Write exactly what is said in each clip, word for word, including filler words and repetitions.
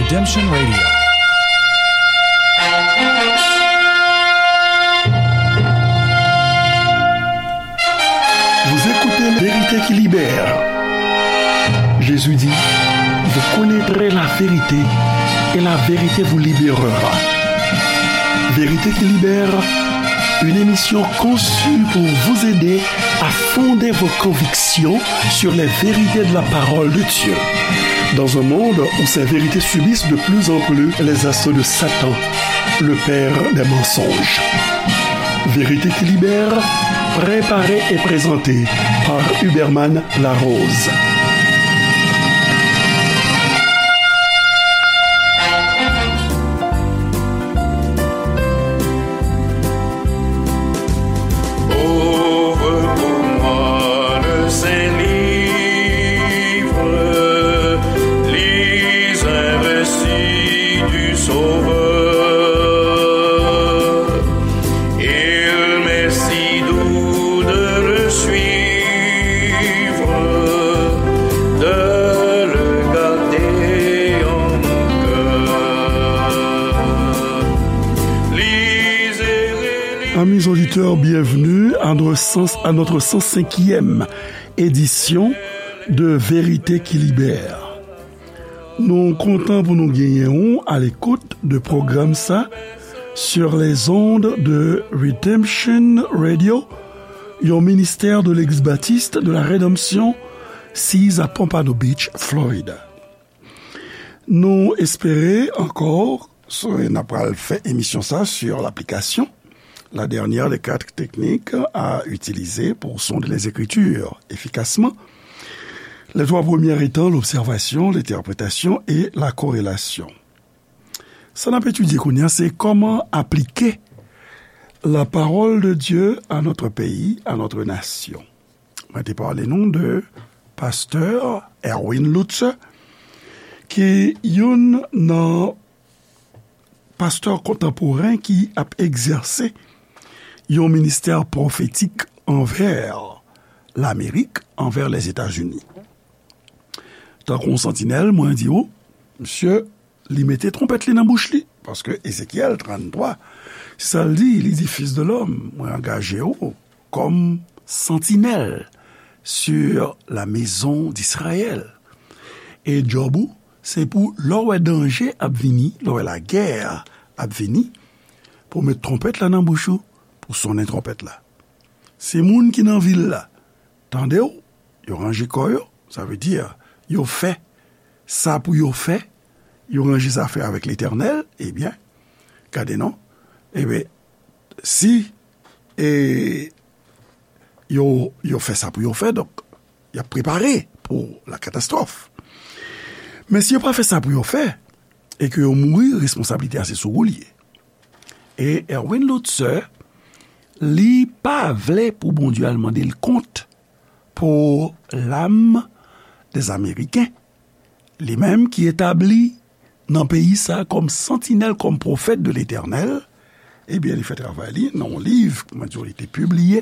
Redemption Radio. Vous écoutez Vérité qui libère. Jésus dit, vous connaîtrez la vérité et la vérité vous libérera. Vérité qui libère, une émission conçue pour vous aider à fonder vos convictions sur les vérités de la parole de Dieu. Dans un monde où ces vérités subissent de plus en plus les assauts de Satan, le père des mensonges. Vérité qui libère, préparée et présentée par Huberman Larose. Ouvre pour moi le saint livre, lis un récit du Sauveur. Il m'est si doux de le suivre, de le garder en mon cœur. Lisez, relisez. Amis auditeurs, bienvenue à notre cent, à notre cent cinquième édition de Vérité qui libère. Nou kontan pou nou genyen ou à l'écoute de pwogram sa sur les ondes de Redemption Radio, yon ministè de Legliz Batis de la Redanmsyon, siz a Pompano Beach, Florida. Nou espere ankò, so, n ap pral fè emisyon sa sur l'application, la dernière des quatre techniques à utiliser pour sonder les Écritures efficacement. Les trois premières étant l'observation, l'interprétation et la corrélation. Sa n ap etidye kounye a, se kòman aplike la parole de Dieu à notre pays, à notre nation. Mwen te pale nou de pastè Erwin Lutzer, ki youn nan pastè kontanporen ki ap egzèse yon ministè pwofetik anvè Lamerik, anvè Lèzetazini. Tankou yon santinèl, mwen di w, misye, li mete twonpèt li nan bouch li, paske Ezekyèl tranntwa, se sa l di, li di, Fils de l'homme, mwen angaje w kòm santinèl sur la maison d'Israël. E djòb ou, se pou lè w wè danje ap vini, lè w wè lagè ap vini, pou w met twonpèt la nan bouch ou, pou sonnen twonpèt la. Se moun ki nan vil la, tande w, yo ranje kò yo, sa vle di, yo fè sa pou yo fè, yo ranje zafè avèk Letènèl, ebyen, gade non, ebyen, si, e, yo, yo fè sa pou yo fè, donk, y ap prepare pou la katastwòf. Men si yo pa fè sa pou yo fè, e ke yo mouri, responsablite a se sou ou l ye. E Erwin Lutzer, li pa vle pou Bondye al mande l kont pou lam dèzameriken. Li menm ki etabli nan peyi sa kòm santinèl, kòm pwofèt de Letènèl, ebyen, li fè travay li nan yon liv, kòman di, li te pibliye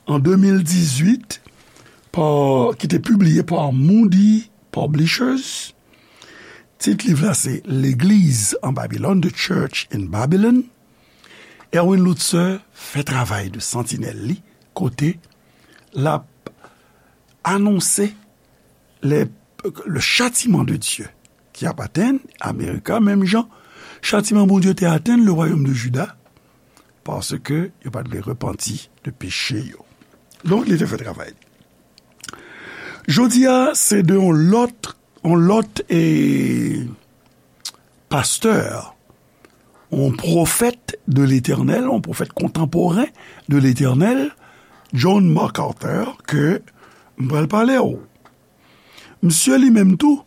an de mil dizuit, pa, ki te pibliye pa Moody Publishers. Tit liv la se Legliz an Babilòn, The Church in Babylon. Erwin Lutzer fè travay de santinèl li, kote l ap anonse le, le châtiment de Dieu ki ap atenn Amerika, menm jan chatiman Bondye te atenn le royaume de Juda, paske yo pa t vle repanti de peche yo. Donk, li te fè travay li. Jodi a, se de yon lòt, yon lòt, e, pastè, yon pwofèt de Letènèl, yon pwofèt kontanporen de Letènèl, John MacArthur, ke m pral pale w. Misye li menm tou,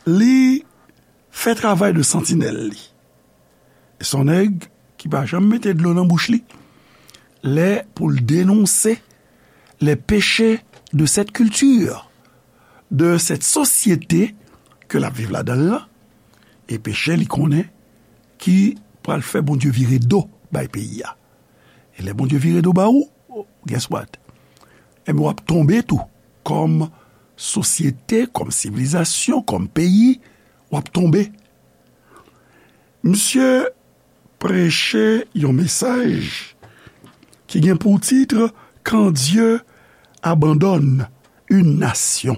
li fè travay de santinèl li. E se yon nèg ki pa janm mete dlo nan bouch li lè pou l denonse les péchés de cette culture, de cette société ke l ap viv ladan l lan, e peche li konnen ki pral fè Bondye vire do bay peyi a. E lè Bondye vire do ba ou, guess what? Enben, w ap tonbe tou. Kòm sosyete, kòm sivilizasyon, kòm peyi, w ap tonbe. Misye preche yon mesaj ki gen pou tit Quand Dieu abandonne une nation.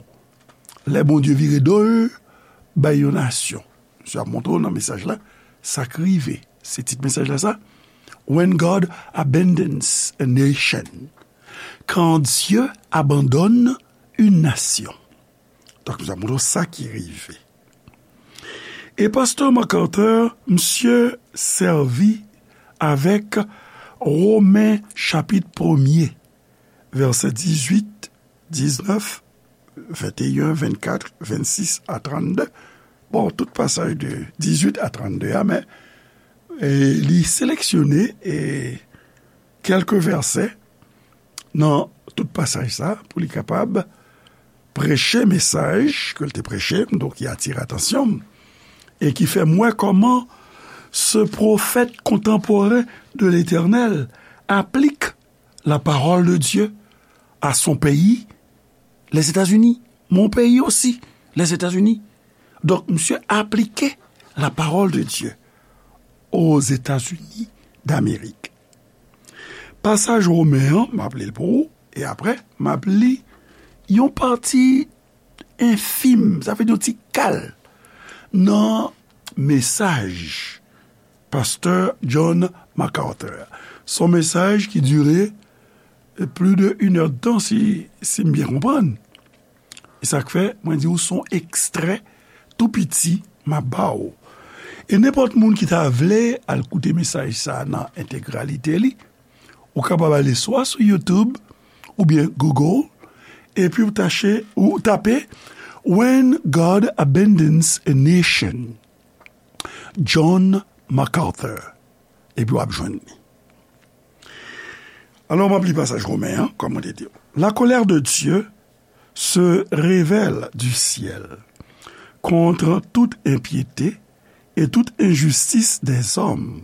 Lè Bondye vire do l bay yon nasyon. Misye ap montre w nan mesaj la sa k rive. Se tit mesaj la sa, When God Abandons a Nation. Quand Dieu abandonne une nation. Donk, misye ap montre w sa ki rive. E pastè MacArthur, misye sèvi avèk Women chapit premye, vèsè dizuit, diznèf, venteyen, vennkat, vennsis a trannde. Bon, tout pasaj de dizuit a trannde a, men, e, li seleksyone, e, kèlke vèsè nan tout pasaj sa pou li kapab preche mesaj ke l te preche, donk ki atire atansyon m, e ki fè m wè kòman ce prophète contemporain de l'Éternel applique la parole de Dieu à son pays, les États-Unis, mon pays aussi, les États-Unis. Donk, misye aplike la parole de Dieu aux États-Unis d'Amérique. Pasaj Women an, m ap li l pou ou, e apre, m ap li yon pati enfim, sa vle di yon ti kal, nan mesaj pastè John MacArthur. Se yon mesaj ki dire plis de inèdtan, si, si m byen konprann. E sa k fè, mwen di w, se yon ekstrè tou piti m ap ba w. E nenpòt moun ki ta vle al koute mesaj sa a nan entegralite li, ou kapab ale swa sou YouTube oubyen Google, epi w tache, ou tape When God Abandons a Nation, John MacArthur, epi w ap jwenn li. Alò, m ap li pasaj Women an, kòm mwen te di w. La colère de Dieu se révèle du ciel contre toute impiété et toute injustice des hommes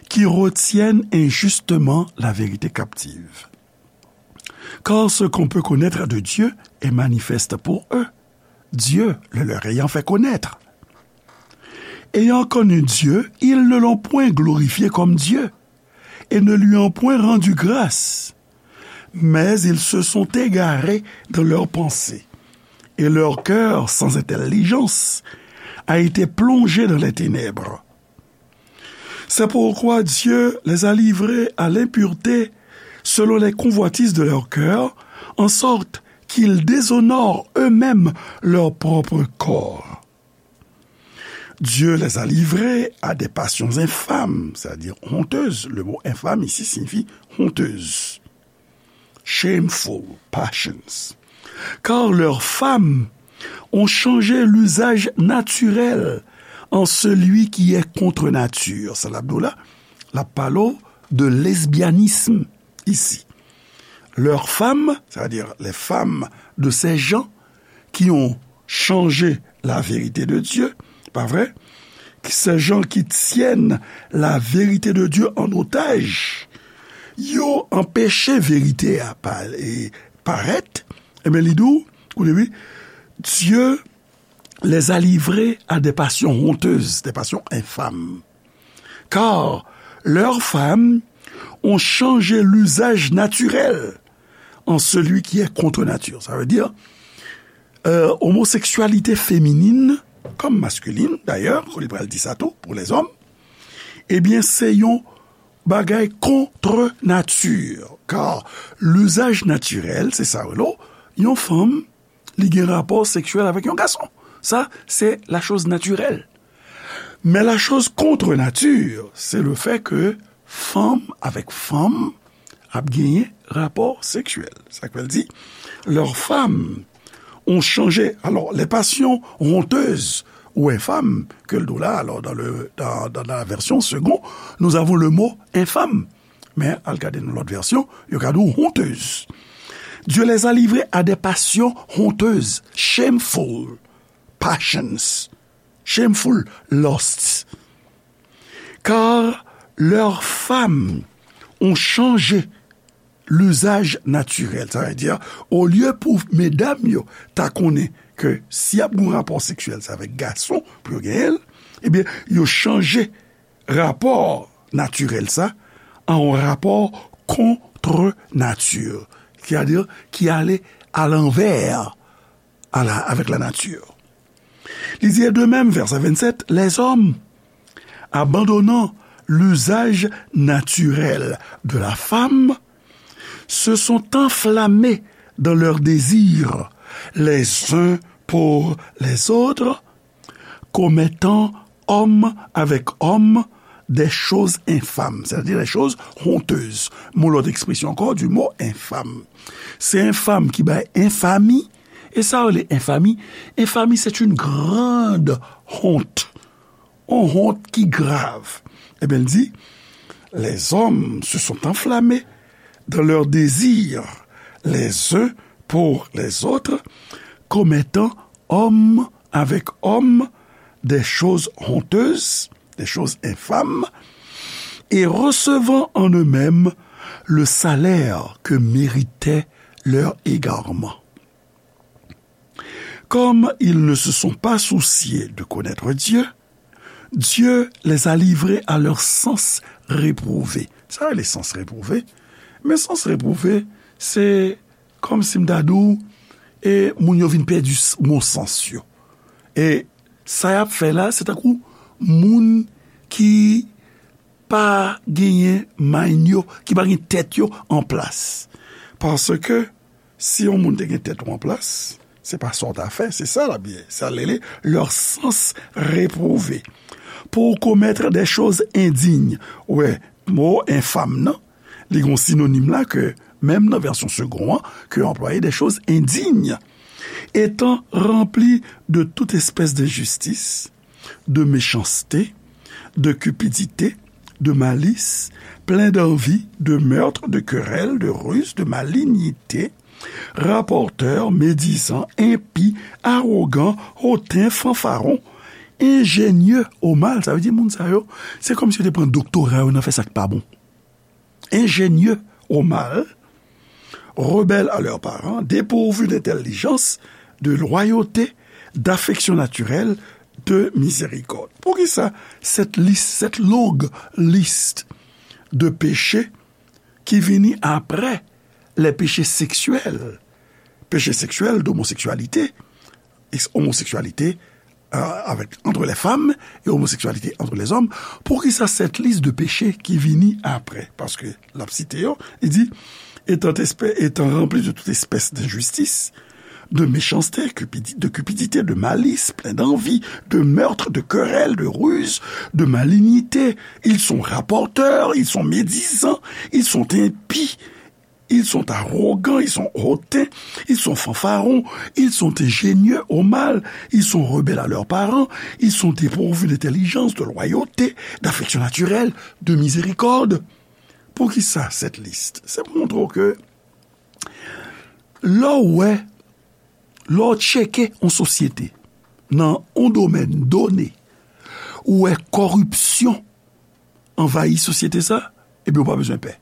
qui retiennent injustement la vérité captive. Car ce qu'on peut connaître de Dieu est manifeste pour eux, Dieu le leur ayant fait connaître. Ayant connu Dieu, ils ne l'ont point glorifié comme Dieu, et ne lui ont point rendu grâce. Mais ils se sont égarés dans leurs pensées, et leur cœur sans intelligence a été plongé dans les ténèbres. C'est pourquoi Dieu les a livrés à l'impureté selon les convoitises de leur cœur, en sorte qu'ils déshonorent eux-mêmes leur propre corps. Dieu les a livrés à des passions infâmes, c'est-à-dire honteuses. Le mot infâme ici signifie honteuse. Shameful passions. Car leurs femmes ont changé l'usage naturel en celui qui est contre nature. Sa l ap di w la, l ap pale w de lesbyanism isi. Leurs femmes, c'est-à-dire les femmes de ces gens qui ont changé la vérité de Dieu, pa vre? Ces gens qui tiennent la vérité de Dieu en otage, yo anpeche verite a pa-, e, parèt, ebyen, li di w, koute wi, Dieu les a livrés à des passions honteuses, des passions infâmes. Car leurs femmes ont changé l'usage naturel en celui qui est contre nature. Sa vle di, euh, omoseksyalite feminin, kòm maskilin, dayè, li pral di sa tou, pou lèzòm, ebyen, se yon bagay contre nature. Car l'usage naturel, se sa, w, yon fanm, li gen rapò seksyèl avèk yon gason. Sa, se la chose naturelle. Men la chose contre nature, c'est le fait que fanm avèk fanm ap genyen rapò seksyèl. Sa k fè l di, leurs femmes ont changé. Alors, les passions honteuses ou infâmes, ke l di w la, alors, dans le, dans, dans la version Segond, nous avons le mot infâme. Men, al gade nan lòt vèsyon, yo ka di w honteuse. Dieu les a livrés à des passions honteuses, shameful passions, shameful lusts. Car leurs femmes ont changé l'usage naturel. Sa vle di, olye pou medam yo ta konnen ke si y ap gen rapò seksyèl, se avèk gason pou yo genyen l, Ebyen, yo chanje rapò natirèl sa an yon rapò contre nature, c'est-à-dire ki ale alanvè a la, avec la nature. Li di, et de même, verset vingt-sept, les hommes, abandonnant l'usage naturel de la femme, se sont enflammés dans leurs désirs les uns pour les autres, commettant homme avec homme des choses infâmes, c'est-à-dire des choses honteuses. Mon lòt ekspresyon ankò du mot infâme. Se enfam ki bay enfami. E sa yo rele enfami? Enfami, c'est une grande honte. Yon wont ki grav. Ebyen, l di, les hommes se sont enflammés dans leurs désirs les uns pour les autres, commettant homme avec homme des choses honteuses, des choses infâmes, et recevant en eux-mêmes le salaire que méritait leur égarement. Comme ils ne se sont pas souciés de connaître Dieu, Dieu les a livrés à leurs sens réprouvés. Sa rele sans réprouvé? Men sans réprouvé, se kòmsi m ta di w, e moun yo vin pèdi s- bon sans yo. E sa y ap fè la, se tankou moun ki pa genyen mind yo, ki pa gen tèt yo an plas. Paske si yon moun te gen tèt ou an plas, se pa sa w ta fè, se sa l ap ye. Sa l rele leurs sens réprouvés. Pour commettre des choses indignes. Ou wè, mo enfam nan, li gen yon sinonim la ke, menm nan vèsyon Segond an, ke yo anplwaye des choses indignes. Étant remplis de toute espèce d'injustice, de méchanceté, de cupidité, de malice, pleins d'envie, de meurtre, de querelle, de ruse, de malignité, rapporteurs, médisants, impies, arrogants, hautains, fanfarons, ingénieux au mal. Sa vle di moun sa yo, se kòmsi yo te pran doktora yo nan fè sa k pa bon. Ingénieux au mal, rebelles à leurs parents, dépourvus d'intelligence, de loyauté, d'affection naturelle, de miséricorde. Poukisa cette liste, cette longue liste de péchés ki vini après les péchés sexuels, péchés sexuels d'homosexualité, ex- homosexualité euh, avec, entre les femmes et homosexualité entre les hommes, poukisa cette liste de péchés ki vini après? Paske l ap site yo, li di, étant, espè- étant remplis de toute espèce d'injustice, de méchanceté, cupidi- de cupidité, de malice, pleins d'envie, de meurtre, de querelle, de ruse, de malignité. Ils sont rapporteurs, ils sont médisants, ils sont impies, ils sont arrogants, ils sont hautains, ils sont fanfarons, ils sont ingénieux au mal, ils sont rebelles à leurs parents, ils sont dépourvus d'intelligence, de loyauté, d'affection naturelle, de miséricorde. Poukisa cette liste? Se pou montre w ke lè w wè, lè w tcheke yon sosyete nan yon domèn done, ou wè kòripsyon anvayi sosyete sa, ebyen, ou pa bezwen pè.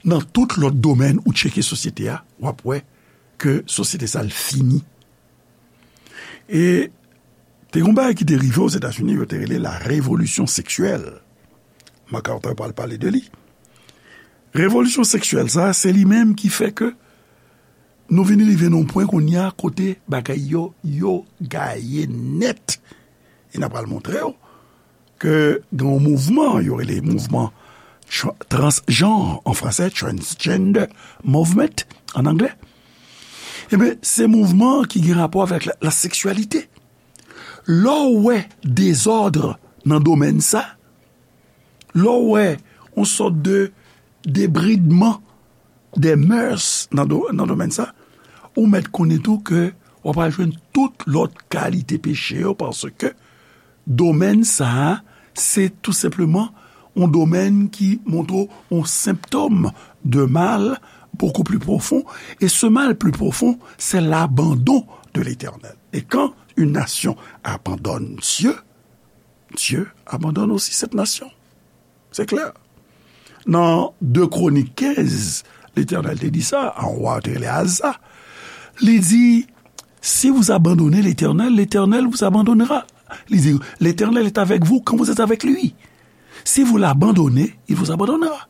Nan tout lòt domèn ou tcheke sosyete a, w ap wè ke sosyete sa l fini. E te gen yon bagay ki te rive Ozetazini, yo te rele la révolution sexuelle. MacArthur pral pale de li. Revolisyon seksyèl sa, se li menm ki fè ke nou vin rive nan yon pwen kounye a kote bagay yo, yo gaye nèt. E n a pral montre w ke gen yon mouvman, yo rele mouvman tra- transjanr an fransè, transgender movement an anglè. Ebyen, se mouvman ki gen rapò avèk la, la seksyalite. Lè w wè dezòd nan domèn sa, lè w wè yon sòt de debridman des mœurs nan do- nan domèn sa, ou mèt konnen tou ke w ap al jwenn tout lòt kalite peche yo, paske domèn sa a, se tou senpleman yon domèn ki montre w yon senptòm de mal beaucoup plus profond, et ce mal plus profond, c'est l'abandon de l'Éternel. Et quand une nation abandonne Dieu, Dieu abandonne aussi cette nation. Se klè. Nan de Kronik kenz, Letènèl te di sa a yon wa yo te rele Aza. Li di, si vous abandonnez l'Éternel, l'Éternel vous abandonnera. Li di, L'Éternel est avec vous quand vous êtes avec lui. Si vous l'abandonnez, il vous abandonnera.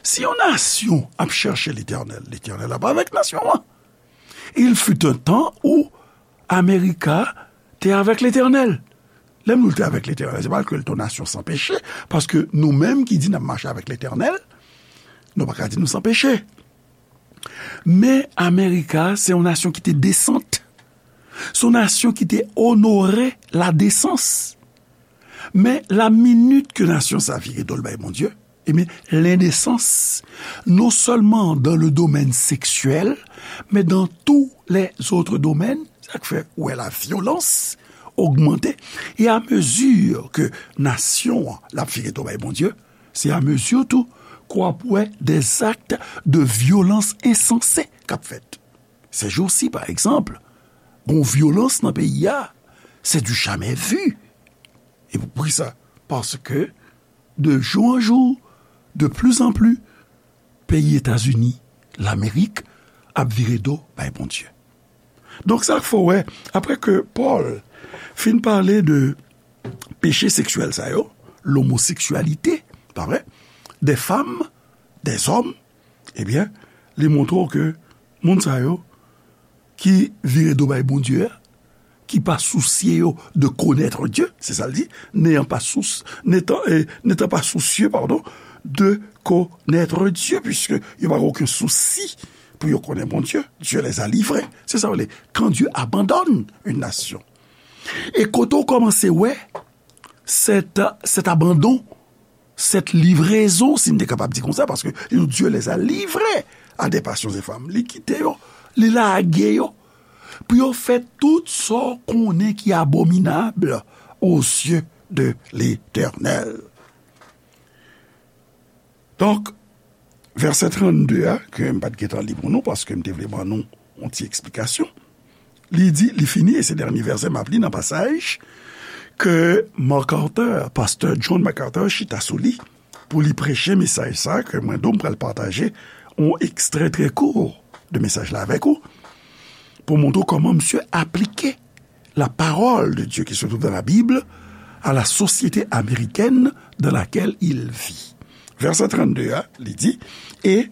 Si yon nasyon ap chèche Letènèl, Letènèl ap avèk nasyon an. Il fut un temps où America te avèk Letènèl. Lè m di l te avèk Letènèl, se pa ke l te yon nasyon san peche, paske nou menm ki di n ap mache avèk Letènèl, nou pa ka di nou san peche. Men America, se yon nasyon ki te desant. Se yon nasyon ki te onore ladesans. Men la minit ke nasyon sa vire do l bay Bondye, ebyen, lendesans, non sèlman dans le domaine sexuel, men dans tous les autres domaines, sa k fè ou wè la vyolans ogmante. E a mezi ke nasyon an l ap vire do bay Bondye, se a mezi tou ke w ap wè des actes de violence insensés k ap fèt. Ces jours-ci, par exemple, gon vyolans nan peyi a, c'est du jamais vu. E pou ki sa? Paske, de jou an jou, de pli an pli, peyi Etazini, Lamerik, ap vire do bay Bondye. Donk, sa k fè w wè, apre ke Pòl fin pale de peche seksyèl sa yo, lomoseksyalite, pa vre, des femmes, des hommes, ebyen, li montre w ke moun sa yo ki vire do bay Bondye a, ki pa sousye yo de connaître Dieu, se sa l di, n'ayant pas sous, n'étant, eh, n'étant pas soucieux, pardon, de connaître Dieu, puisque yo pa gen okenn sousi pou yo konnen Bondye, Dieu les a livrés. Se sa w le, quand Dieu abandonne une nation. E kote w kòmanse wè cet, cet abandon, cette livraison, si n te kapab di konsa, paske li di, Dieu les a livrés à des passions infâmes. Li kite yo, li lage yo, pou yo fè tout sa w konnen ki abominab aux yeux de l'Éternel. Donk, vèsè trannde a, ke m pa t gentan li pou nou, paske m te vle ban nou yon ti eksplikasyon. Li di, li fini, e se dènye vèsè m ap li nan pasaj ke MacArthur, pastè John MacArthur, chita sou li pou li preche mesaj sa, ke mwen, Dom, pral pataje yon ekstrè trè kou de mesaj la avèk ou, pou montre w kòman misye aplike la parole de Dieu qui se trouve dans la Bible à la société américaine dans laquelle il vit. Vèsè trannde a, li di, Et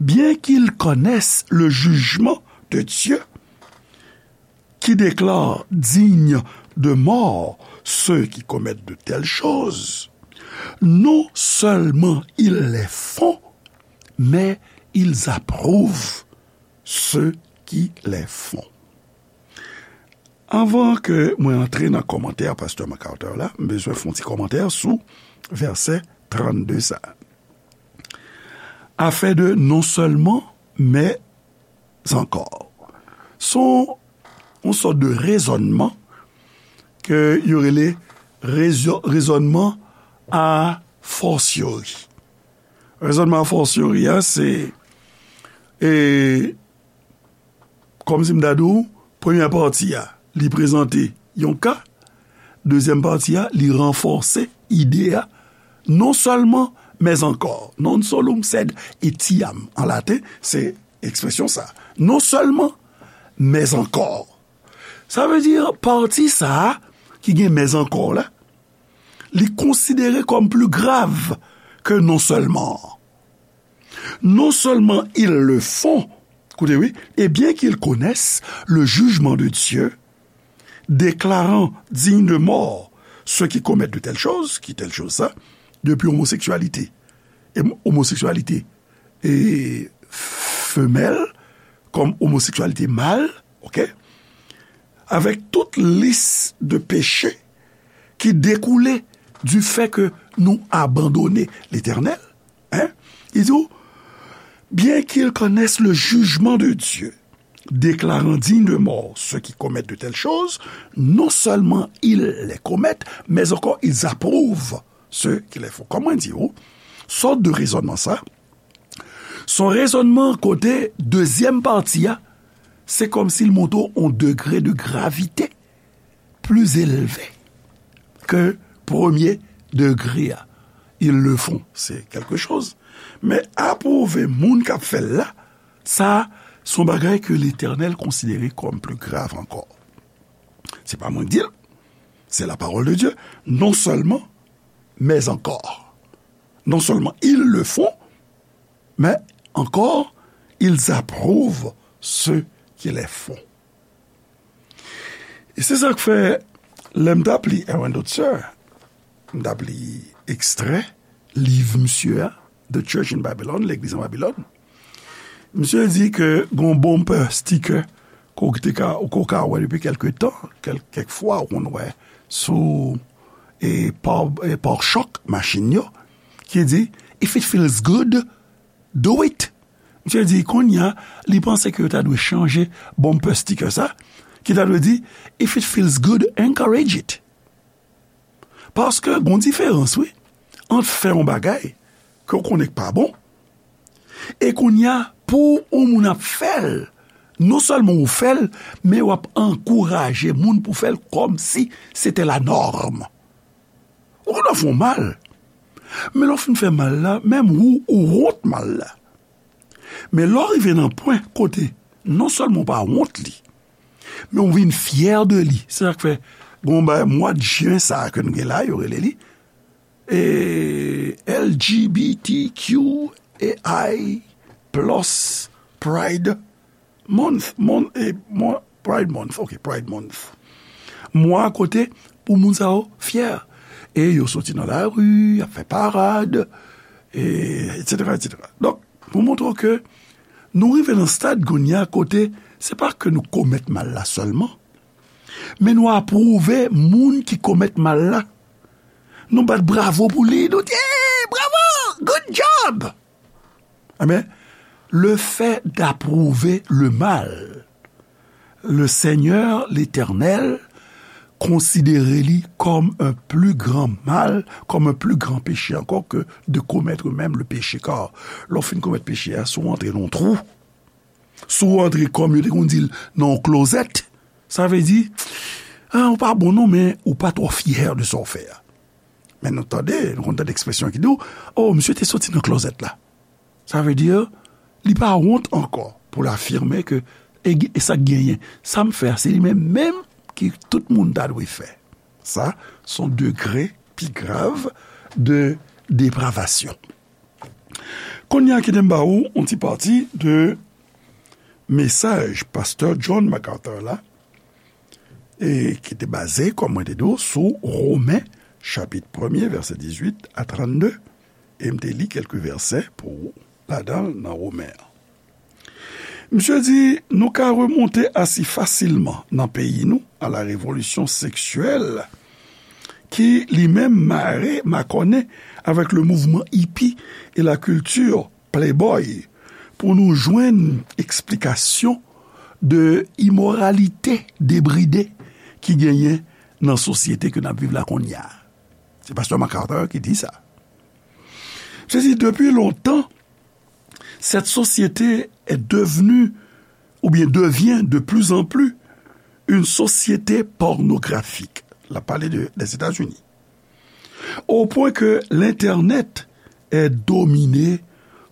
bien qu'ils connaissent le jugement de Dieu, qui déclare dignes de mort ceux qui commettent de telles choses, non seulement ils les font, mais ils approuvent ceux qui les font. Anvan ke mwen antre nan kòmantè pastè MacArthur la, m bezwen fè yon ti kòmantè sou vèsè trannde sa. Afè de non sèlman, men ankò. Se yon, yon sòt de rezònman ke yo rele rezo-, rezònman a fortiori. Rezònman a fortiori a, se, e, kòmsi m ta di w, premyè pati a, li prezante yon ka, dezyèm pati a, li ranfòse ide a, non sèlman, men ankò. Non solum sed etiam, an laten, se ekspresyon sa. Non sèlman, men ankò. Sa vle di, pati sa a, ki gen men ankò la, li konsidere kòm pli grav ke non sèlman. Non seulement ils le font, koute wi, et bien qu'ils connaissent le jugement de Dieu, déclarant dignes de mort ceux qui commettent de telles choses, ki tèl choz sa, depi omoseksyalite, e omoseksyalite, e femèl, kòm omoseksyalite mal, oke? Avèk tout lis de peche ki dekoule du fait que nou abandone Letènèl, hein? Li di w, bien qu'ils connaissent le jugement de Dieu, déclarant dignes de mort ceux qui commettent de telles choses, non seulement ils les commettent, mais encore ils approuvent ceux qui les font. Kòman di w, sòt de rezònman sa, se yon rezònman kote dezyèm pati a, se kòmsi l montre w yon degre de gravite pli elve ke premye degre a. Ils le font, c'est quelque chose. Men apwouve moun k ap fè l la, sa, se yon bagay ke Letènèl konsidere kòm pli grav ankò. Se pa mwen k di l. C'est la parole de Dieu. Non seulement, mais encore. Non seulement ils le font, mais encore, ils approuvent ceux qui les font. E se sa k fè, lè m t ap li Erwin Dotzer, m t ap li ekstrè liv misye a, The Church in Babylon, Legliz an Babilòn. Misye di ke gon bumper sticker ke w te ka, ke w ka wè depi kèlke tan, kèl, kèk fwa ou konn wè sou e pa, e pare-choc machin yo, ki di, "If it feels good, do it." Misye di, kounye a, li panse ke yo ta dwe chanje bumper sticker sa, ki ta dwe di, "If it feels good, encourage it." Paske gon diferans, wi, ant fè yon bagay ke w konnen k pa bon, e kounye a, pou yon moun ap fè l, non sèlman ou fè l, men w ap ankouraje moun pou fè l kòmsi se te la nòm. Ou konn w ap fè yon mal, men lè w fin fè mal la, menm ou, ou wont mal la. Men lè w rive nan pwen kote non sèlman w pa wont li, men w vin fyè de li. Se sa k fè, gon bagay, mwa jen sa a ke nou gen la, yo rele li, e, L G B T Q A I plus Pride Month, mon-, e, mon-, Pride Month, ok, Pride Month. Mwa kote pou moun sa yo fyè. E yo soti nan lari, y ap fè parad, e, et cetera, et cetera. Donk, pou montre w ke nou rive nan stad kounye a kote se pa ke nou komèt mal la sèlman, men nou apwouve moun ki komèt mal la. Nou bat bravo pou li, nou di, "Hey, bravo, good job!" Ebyen, le fait d'approuver le mal, le Seigneur, l'Éternel, konsidere li kòm un plus grand mal, kòm un plus grand péché encore que de commettre même le péché. Kar, lè w fin komèt peche a, si w antre nan yon twou, si w antre, kòm yo te konn di l, nan yon klozèt, sa vle di, a, ou pa bon non, men ou pa twò fyè de sa w fè a. Men nou tande, nou konn tande ekspresyon ki di w, "O, misye te soti nan klozèt la." Sa vle di, li pa wont ankò pou l afime ke, e, e sa k genyen, sa m fè a, se li menm menm ki tout moun ta dwe fè. Sa, se yon degre pi grav de depravasyon. Kounye a, kite m ba ou yon ti pati de mesaj pastè John MacArthur la, e ki te baze, kòm mwen te di w, sou Women, chapit premye, vèsè dizuit a trannde, e m te li kèlke vèsè pou ou ladan l nan Women an. Misye di, nou ka remonte asi fasilman nan peyi nou a la revolisyon seksyèl ki li menm mare, makònen avèk le mouvman hippie e la kilti playboy pou nou jwenn eksplikasyon de imoralite debride ki genyen nan sosyete ke n ap viv la kounye a. Se pastè MacArthur ki di sa. Se di, depuis longtemps, cette société est devenue, ou bien devient de plus en plus, une société pornographique. L ap pale de, des États-Unis. Au point que l'Internet est dominé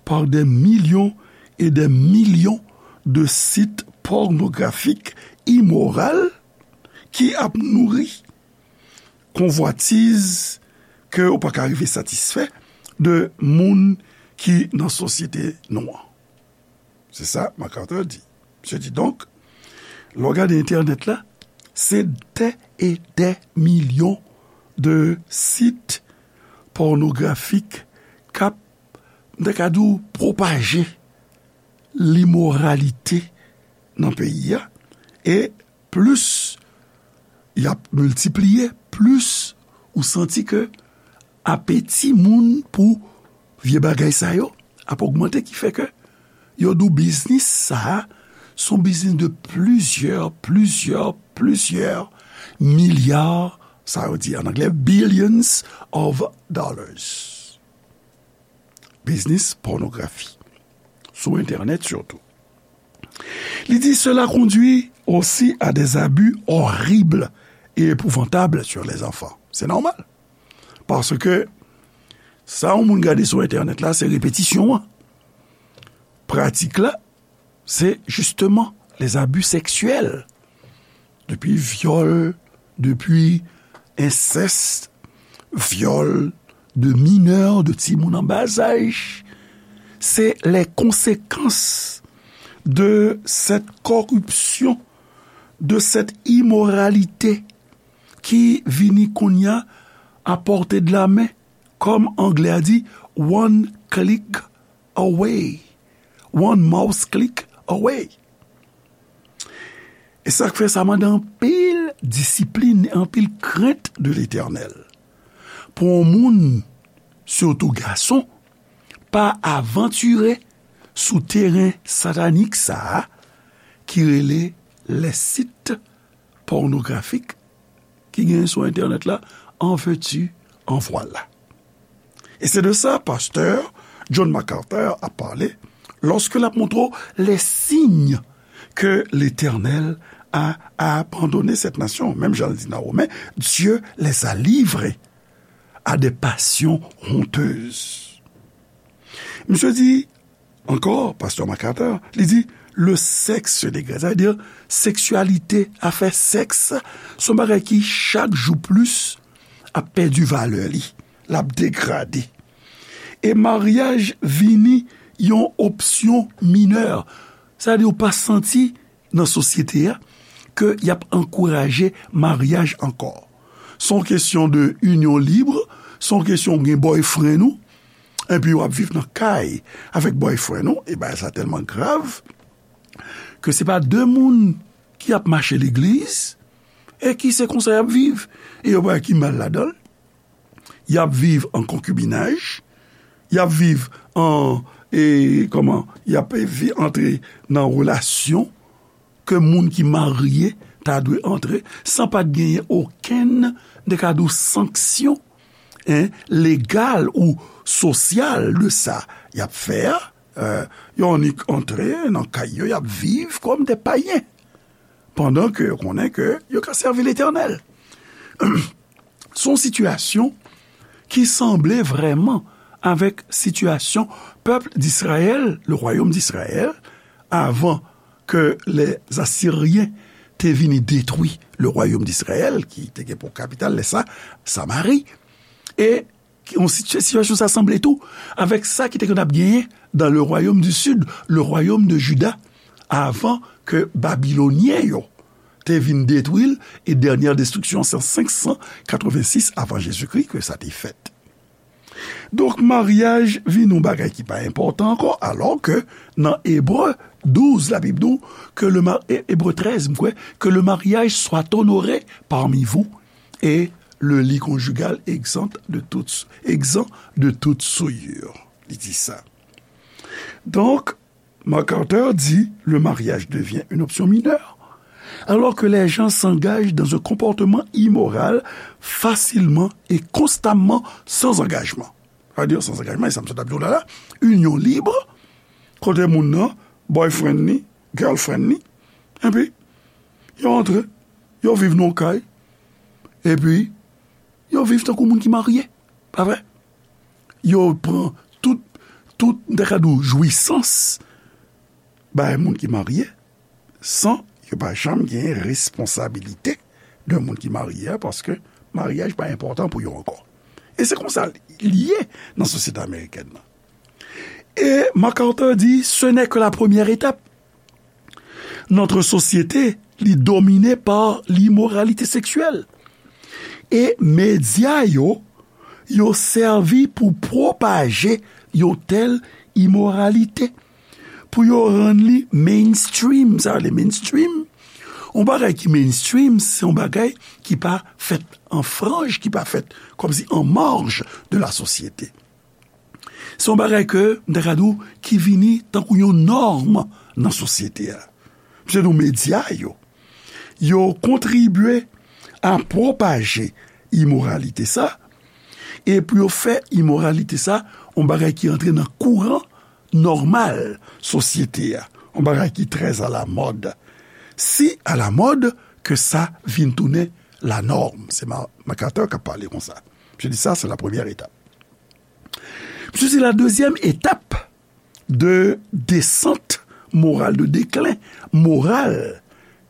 par des millions et des millions de sites pornographiques immoraux ki ap nouri konvwatiz ke ou pa ka rive satisfè de moun ki nan sosyete nou an. Se sa MacArthur di. Misye di, donk, lè w gade entènèt la, se dè e dè milyon de sit pònografik k ap, m ta ka di w, pwopaje limoralite nan peyi a. E plis y ap miltipliye, plis ou santi ke apeti moun pou vye bagay sa yo ap ogmante, ki fè ke yo di w biznis sa a, se yon biznis de plizyè, plizyè, plizyè milya, sa yo di an anglè, billions of dollars. Biznis pònografi, sou entènèt sitou. Li di, cela conduit aussi à des abus horribles et épouvantables sur les enfants. Se nòmal. Paske sa yon moun gade sou entènèt la, se repetisyon an. Pratik la, se justement les abus sexuels. Depi vyòl, depi, ensèst, vyòl de minè, de timoun an bazaj, se les conséquences de cette corruption, de cette immoralité ki vini kounye a à portée de la main, kòm anglè a di, one click away, one mouse click away. E sa k fè sa mande anpil disiplin, anpil krent de Letènèl. Pou yon moun, sitou gason, pa avantire sou teren satanik sa a ki rele les sites pornographiques ki genyen sou entènèt la, en veux-tu, en voilà. E se de sa pastè John MacArthur ap pale lòske l ap montre w les signes que l'Éternel a abandonné cette nation. Menm jan l di nan Women, Dieu les a livrés à des passions honteuses. Misye di, ankò, pastè MacArthur, li di, le sexe se dégrade, sa vle di seksyalite, afè sèks, se yon bagay ki chak jou plis ap pèdi valè li, l ap degrade. E maryaj vini yon opsyon minè, sa vle di ou pa santi nan sosyete a ke y ap ankouraje maryaj ankò. Se yon kesyon de inyon lib, se yon kesyon ou gen boyfriend ou, epi w ap viv nan kay avèk boyfriend ou, e bagay sa tèlman grav ke se pa de moun ki ap mache legliz e ki se konsa y ap viv. E yo pa ki mal ladan l. Y ap viv an konkibinaj, y ap viv an, e, kòman, y ap vi-, antre nan relasyon ke moun ki marye ta dwe antre, san pa t genyen okenn, de ka di w, sanksyon, en, legal ou sosyal de sa y ap fè a. Euh, yo annik antre nan kay yo, y ap viv kòm de payen, pandan ke yo konnen ke yo ka sèvi Letènèl. Se yon sitiyasyon ki sanble vrèman avèk sitiyasyon pèp Dizrayèl, le royaume d'Israël, avan ke les Assyriens te vini detwi le royaume d'Israël, ki te gen pou kapital lè sa Samari. E yon siti-, sitiyasyon sa sanble tou avèk sa ki te konn ap genyen dans le royaume du sud, le royaume de Juda, avan ke Babilonyen yo te vin detwi l, e dènyè destriksyon se an senk san katrevensis avan Jezikri ke sa te fèt. Donk, maryaj vin yon bagay ki pa enpòtan ankò, alò ke nan Ebre douz, Labib di w ke le ma-, E-, Ebre trèz, m kwè, que le mariage soit honoré parmi vous et le lit conjugal exempt de toute, exempt de toute souillure. Li di sa. Donk, MacArthur di, le mariage devient une option mineure, alors que les gens s'engagent dans un comportement immoral facilement et constamment sans engagement. Sa vle di, sans engagement, e sa m sot ap di w la la, inyon lib, kote moun nan, boyfriend ni, girlfriend ni, epi yo antre, yo viv nan yon kay, epi yo viv tankou moun ki marye, pa vre? Yo pran tout, tout, m ta ka di w, jwisans bay moun ki marye, san yo pa janm gen responsabilite de moun ki marye a, paske maryaj pa enpòtan pou yo ankò. E se konsa l ye nan sosyete amerikèn nan. E MacArthur di, ce n'est que la première étape. Notre société, li domine par l'immoralité sexuelle. E medya yo, yo sèvi pou pwopaje yon tèl imoralite, pou yo rann li mainstream. Sa vle mainstream, yon bagay ki mainstream, se yon bagay ki pa fèt an franj, ki pa fèt kòmsi an marj de la sosyete. Se yon bagay ke, m ta ka di w, ki vini tankou yon nòm nan sosyete a. Se nou medya yo. Yo kontribye a pwopaje imoralite sa, e pou yo fè imoralite sa yon bagay ki antre nan kouran nòmal sosyete a, yon bagay ki trè alamòd. Si alamòd ke sa vin tounen lanòm. Se Ma-, MacArthur k ap pale konsa. Misye di sa, se la premyè etap. Misye di la dezyèm etap de desant moral, de deklen moral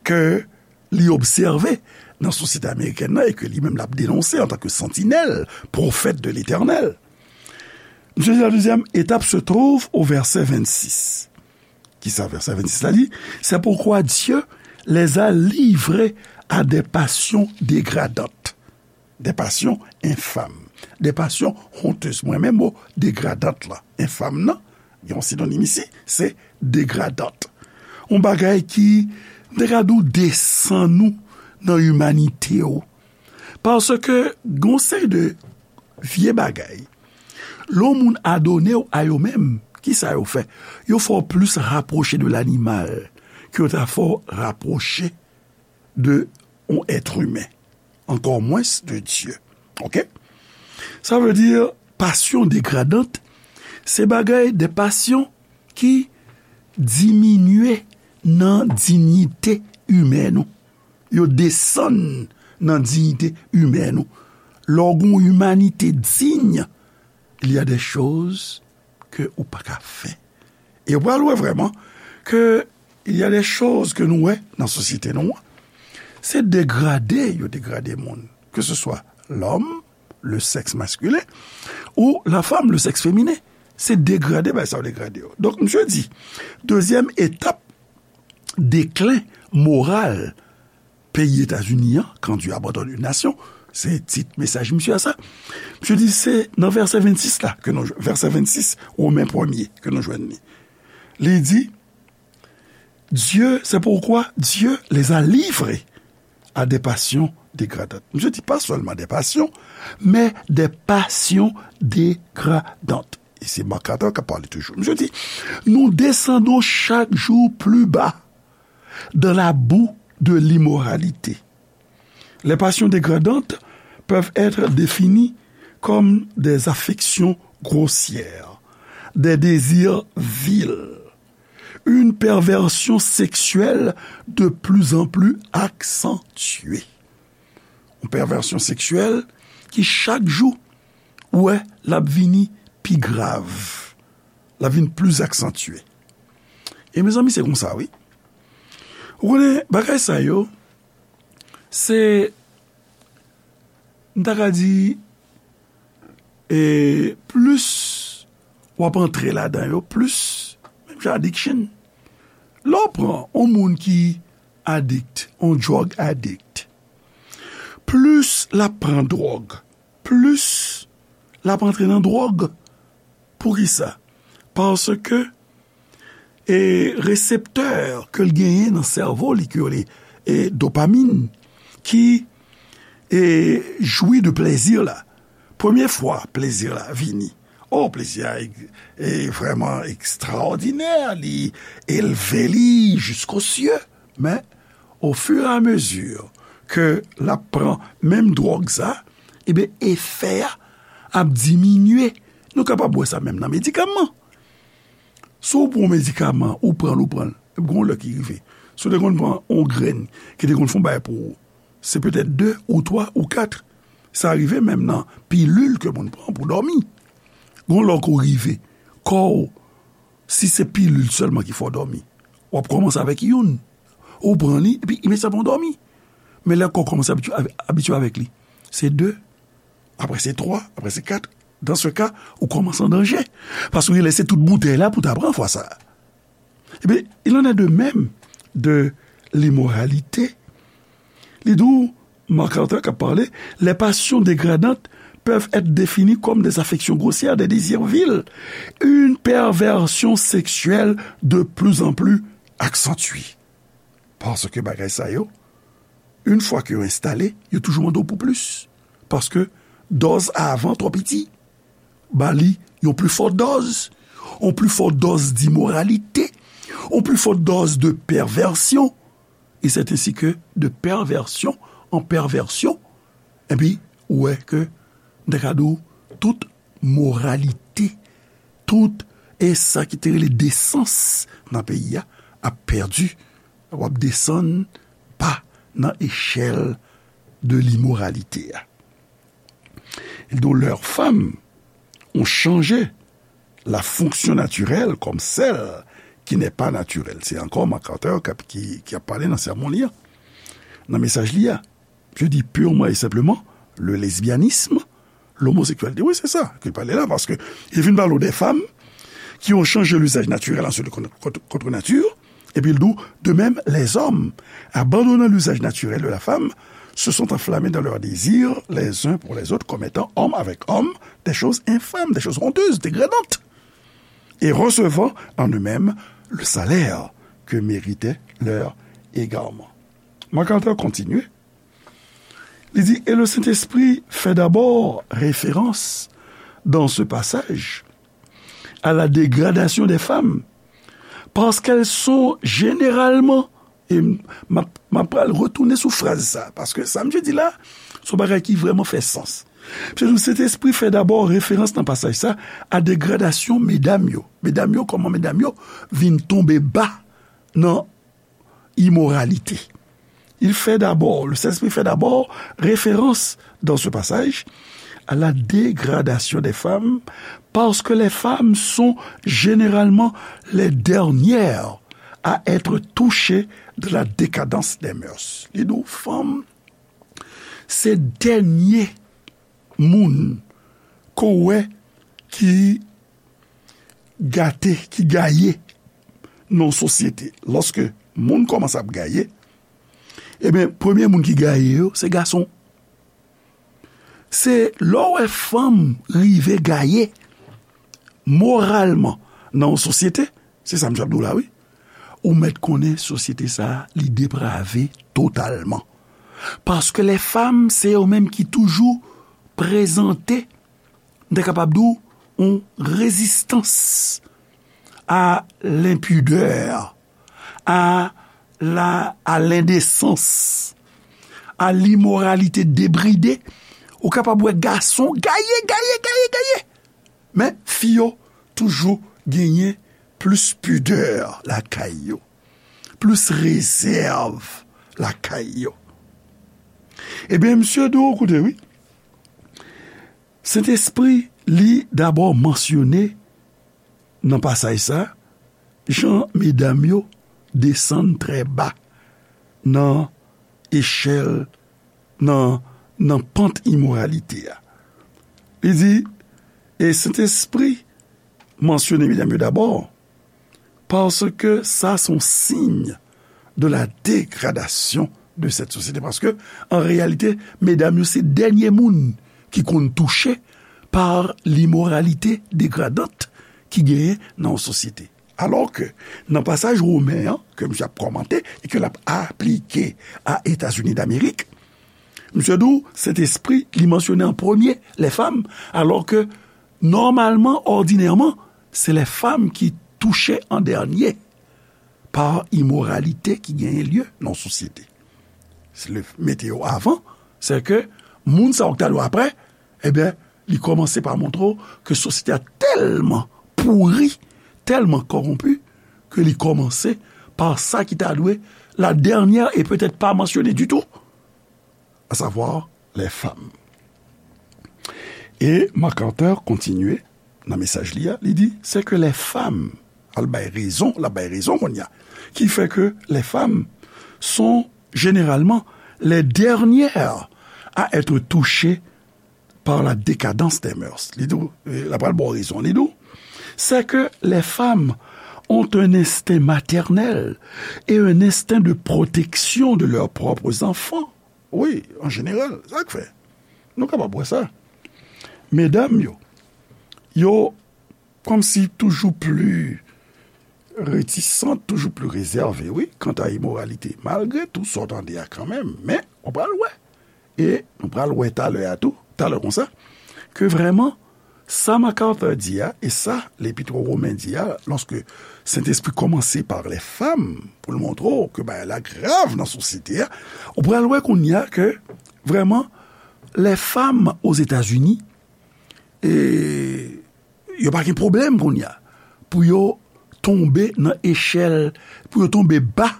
ke li obsève nan sosyete amerikèn nan e ke li menm l ap denonse antanke santinèl, pwofèt de Letènèl. Misye di, la deuxième étape se trouve au verset vingt-six. Kisa vèsè vennsis la di? C'est pourquoi Dieu les a livrés à des passions dégradantes, des passions infâmes, des passions honteuses. Mwen renmen mo degradant la. Enfam nan, gen yon sinonim isi, se degradant. Yon bagay ki, m te ka di w, desann ou nan imanite w. Paske gen yon seri de vye bagay, lè yon moun adone w a yo menm, kisa yo fè? Yo fè w plis rapwoche de lanimal ke yo ta fè w rapwoche de yon èt imen, ankò mwens de Dye. Oke? Sa vle di, pasyon degradant, se bagay, de pasyon ki diminye nan diyite imèn ou. Yo desann nan diyite imèn ou. Lè w gen yon imanite diy, il y a des choses ke ou pa ka fè. E w pral wè vrèman ke il y a des choses ke nou wè nan sosyete nou an. Se degrade yo degrade moun. Que ce soit l'homme, le sexe masculin, ou la femme, le sexe féminin. Se degrade, bagay sa yo degrade yo. Donk, misye di, dezyèm etap deklen moral peyi Etazini an, Quand Dieu abandonne une nation, se tit mesaj misye a sa. Misye di se nan vèsè vennsis la, ke nou, vèsè vennsis, Women premye, ke nou jwenn li. Li di, Dieu, c'est pourquoi Dieu les a livrés à des passions dégradantes. Misye di pa sèlman des passions, mais des passions dégradantes. E se Marc Carter k ap pale toujou. Misye di, nous descendons chaque jour plus bas dans la boue de l'immoralité. Les passions dégradantes peuvent être définies comme des affections grossières, des désirs vils, une perversion sexuelle de plus en plus accentuée. Yon pèvèsyon seksyèl ki chak jou, ou wè, l ap vini pi grav. L ap vin plis aksantye. E mezanmi, se konsa, wi. Ou konnen, bagay sa yo, se, m ta ka di, e plis w ap antre ladan yo, plis, menm jan addiction. Lè w pran yon moun ki adikt, yon drug addict, plis l ap pran dwòg, plis l ap antre nan dwòg. Poukisa? Paske, e, reseptè ke l genyen nan sèvo li, ke yo rele, e, dopamin, ki, e, jwi de plezi la. Premye fwa plezi la vini, o, plezi a, e, vrèman ekstraòdinè, li elve li jiskosye. Men, ofiramezi ke l ap pran menm dwòg sa, ebyen, efè a ap diminye. Nou kapab wè sa menm nan medikaman. Si w pran yon medikaman, ou pran l, ou pran l, epi gen yon lè ki rive. Si w te konn pran yon grenn ki te konn fè yon bagay pou ou, se petèt de ou twa ou kat. Sa rive menm nan pilil ke moun pran pou dòmi. Gen yon lè w ko rive, kò w, si se pilil sèlman ki fè w dòmi, w ap kòmanse avèk youn. Ou pran li, epi imedyatman w dòmi. Men lè kò w kòmanse abitye, abitye avèk li, se de, apre se twa, apre se kat. Dan se ka, ou kòmanse an danje. Paske w lese tout boutèy la pou w ta pran fwa sa a. Ebyen, il en est de même de l'immoralité. Li di w, Marc Carter k ap pale, les passions dégradantes peuvent être définies comme des affections grossières, des désirs vils, une perversion sexuelle de plus en plus accentuée. Paske bagay sa yo, yon fwa ke yo enstale, yo toujou mande w pou plis. Paske dòz avan twò piti. Ba li yon pli fò dòz, yon pli fò dòz d'imoralité, yon pli fò dòz de pèvèsyon, et c'est ainsi que de perversion en perversion, epi ou wè ke, m ta ka di w, tout moralite, tout, e sa ki te rele desans nan peyi a, ap pèdi, w ap desann ba nan echèl de limoralite a. Et dont leurs femmes ont changé la fonction naturelle comme celle qui n'est pas naturelle. Se ankò Marc Carter k ap, ki, ki ap pale nan sèmon li an, nan mesaj li a. Je dis purement et simplement le lesbianisme, l'homosexualité. Oui, c'est ça qu'il parlait là, parce que il vient parler des femmes qui ont changé l'usage naturel en ce contre, contre, contre nature, et puis il dit, de même, les hommes, abandonnant l'usage naturel de la femme, se sont enflammés dans leur désir les uns pour les autres, commettant homme avec homme des choses infâmes, des choses honteuses, dégradantes, et recevant en eux-mêmes le salaire que méritait leur égarement. MacArthur continue. Li di, et le Saint-Esprit fait d'abord référence dans ce passage à la dégradation des femmes, parce qu'elles sont généralement, e m ap pral retounen sou fraz sa, paske sa misye di la, se yon bagay ki vrèman fè sans. Misye di, Sentespri fè dabò referans nan pasaj sa a degradasyon medam yo. Medam yo, kòman medam yo vin tonbe ba nan imoralite. Il fait d'abord, le Saint-Esprit fait d'abord référence dans ce passage à la dégradation des femmes, parce que les femmes sont généralement les dernières à être touchées de la décadence des mœurs. Li di w, fanm se dènye moun ke w wè ki gate, ki gaye nan yon sosyete. Lòske moun kòmanse ap gaye, ebyen, premye moun ki gaye yo, se gason. Se lè w wè fanm rive gaye moralman nan yon sosyete, se sa m t ap di w la, wi. Ou mèt konnen sosyete sa a, li deprave totalman. Paske lè fanm, se yo menm ki toujou prezante, m ta kapab di w, yon rezistans a lenpidè, a la, a lendesans, a limoralite debride. Ou kapab wè gason gaye, gaye, gaye, gaye. Men fi yo toujou genyen plis pidè lakay yo, plis rezèv lakay yo. Ebyen, misye di w, koute, wi. Sentespri, li dabò mansyone nan pasaj sa, jan medam yo desann trè ba nan echèl, nan, nan pant imoralite a. Li di, e Sentespri mansyone medam yo dabò, parce que ça, c'est un signe de la dégradation de cette société. Paske, an reyalite, medam yo se dènye moun ki konn touche pa limoralite degradant ki genyen nan yon sosyete. Alò ke, nan pasaj Women an, ke misye ap kòmante e ke l ap aplike a Etazini Damerik, misye di w, Sentespri, li mansyone an premye lè fanm, alò ke, nòmalman, òdinèman, se lè fanm ki touche an dènye pa imoralite ki genyen lye nan yon sosyete. Se le mete yo avan, se ke moun sa yo ki ta dwe apre, ebyen, li kòmanse pa montre w ke sosyete a tèlman pouri, tèlman kòwonpi, ke li kòmanse pa sa ki ta dwe la dènyè e petèt pa mansyone ditou, à savoir les femmes. E MacArthur kontinye nan mesaj li a, li di, c'est que les femmes, al bay rezon, l ap bay rezon kounye a, qui fait que les femmes sont généralement les dernières à être touchées par la décadence des mœurs. Li di w, e, l ap pral ba w rezon, li di w, c'est que les femmes ont un instinct maternel et un instinct de protection de leurs propres enfants. Wi, an jeneral, sa k fè. Nou kapab wè sa. Medam yo, yo kòmsi toujou pli retisant, toujou pli rezève, wi, kanta imoralite. Malgre tou sa w tande a kanmenm, men, w pral wè. E nou pral wè talè a tou, talè konsa, ke vrèman, sa MacArthur di a, e sa Lepit o Women di a, lòske Sentespri kòmanse pa lè fanm, pou l montre w ke bagay la grav nan sosyete a, ou pral wè kounye a ke, vrèman, lè fanm Ozetazini, e, yo pa gen pwoblèm kounye a pou yo tonbe nan echèl, pou yo tonbe ba,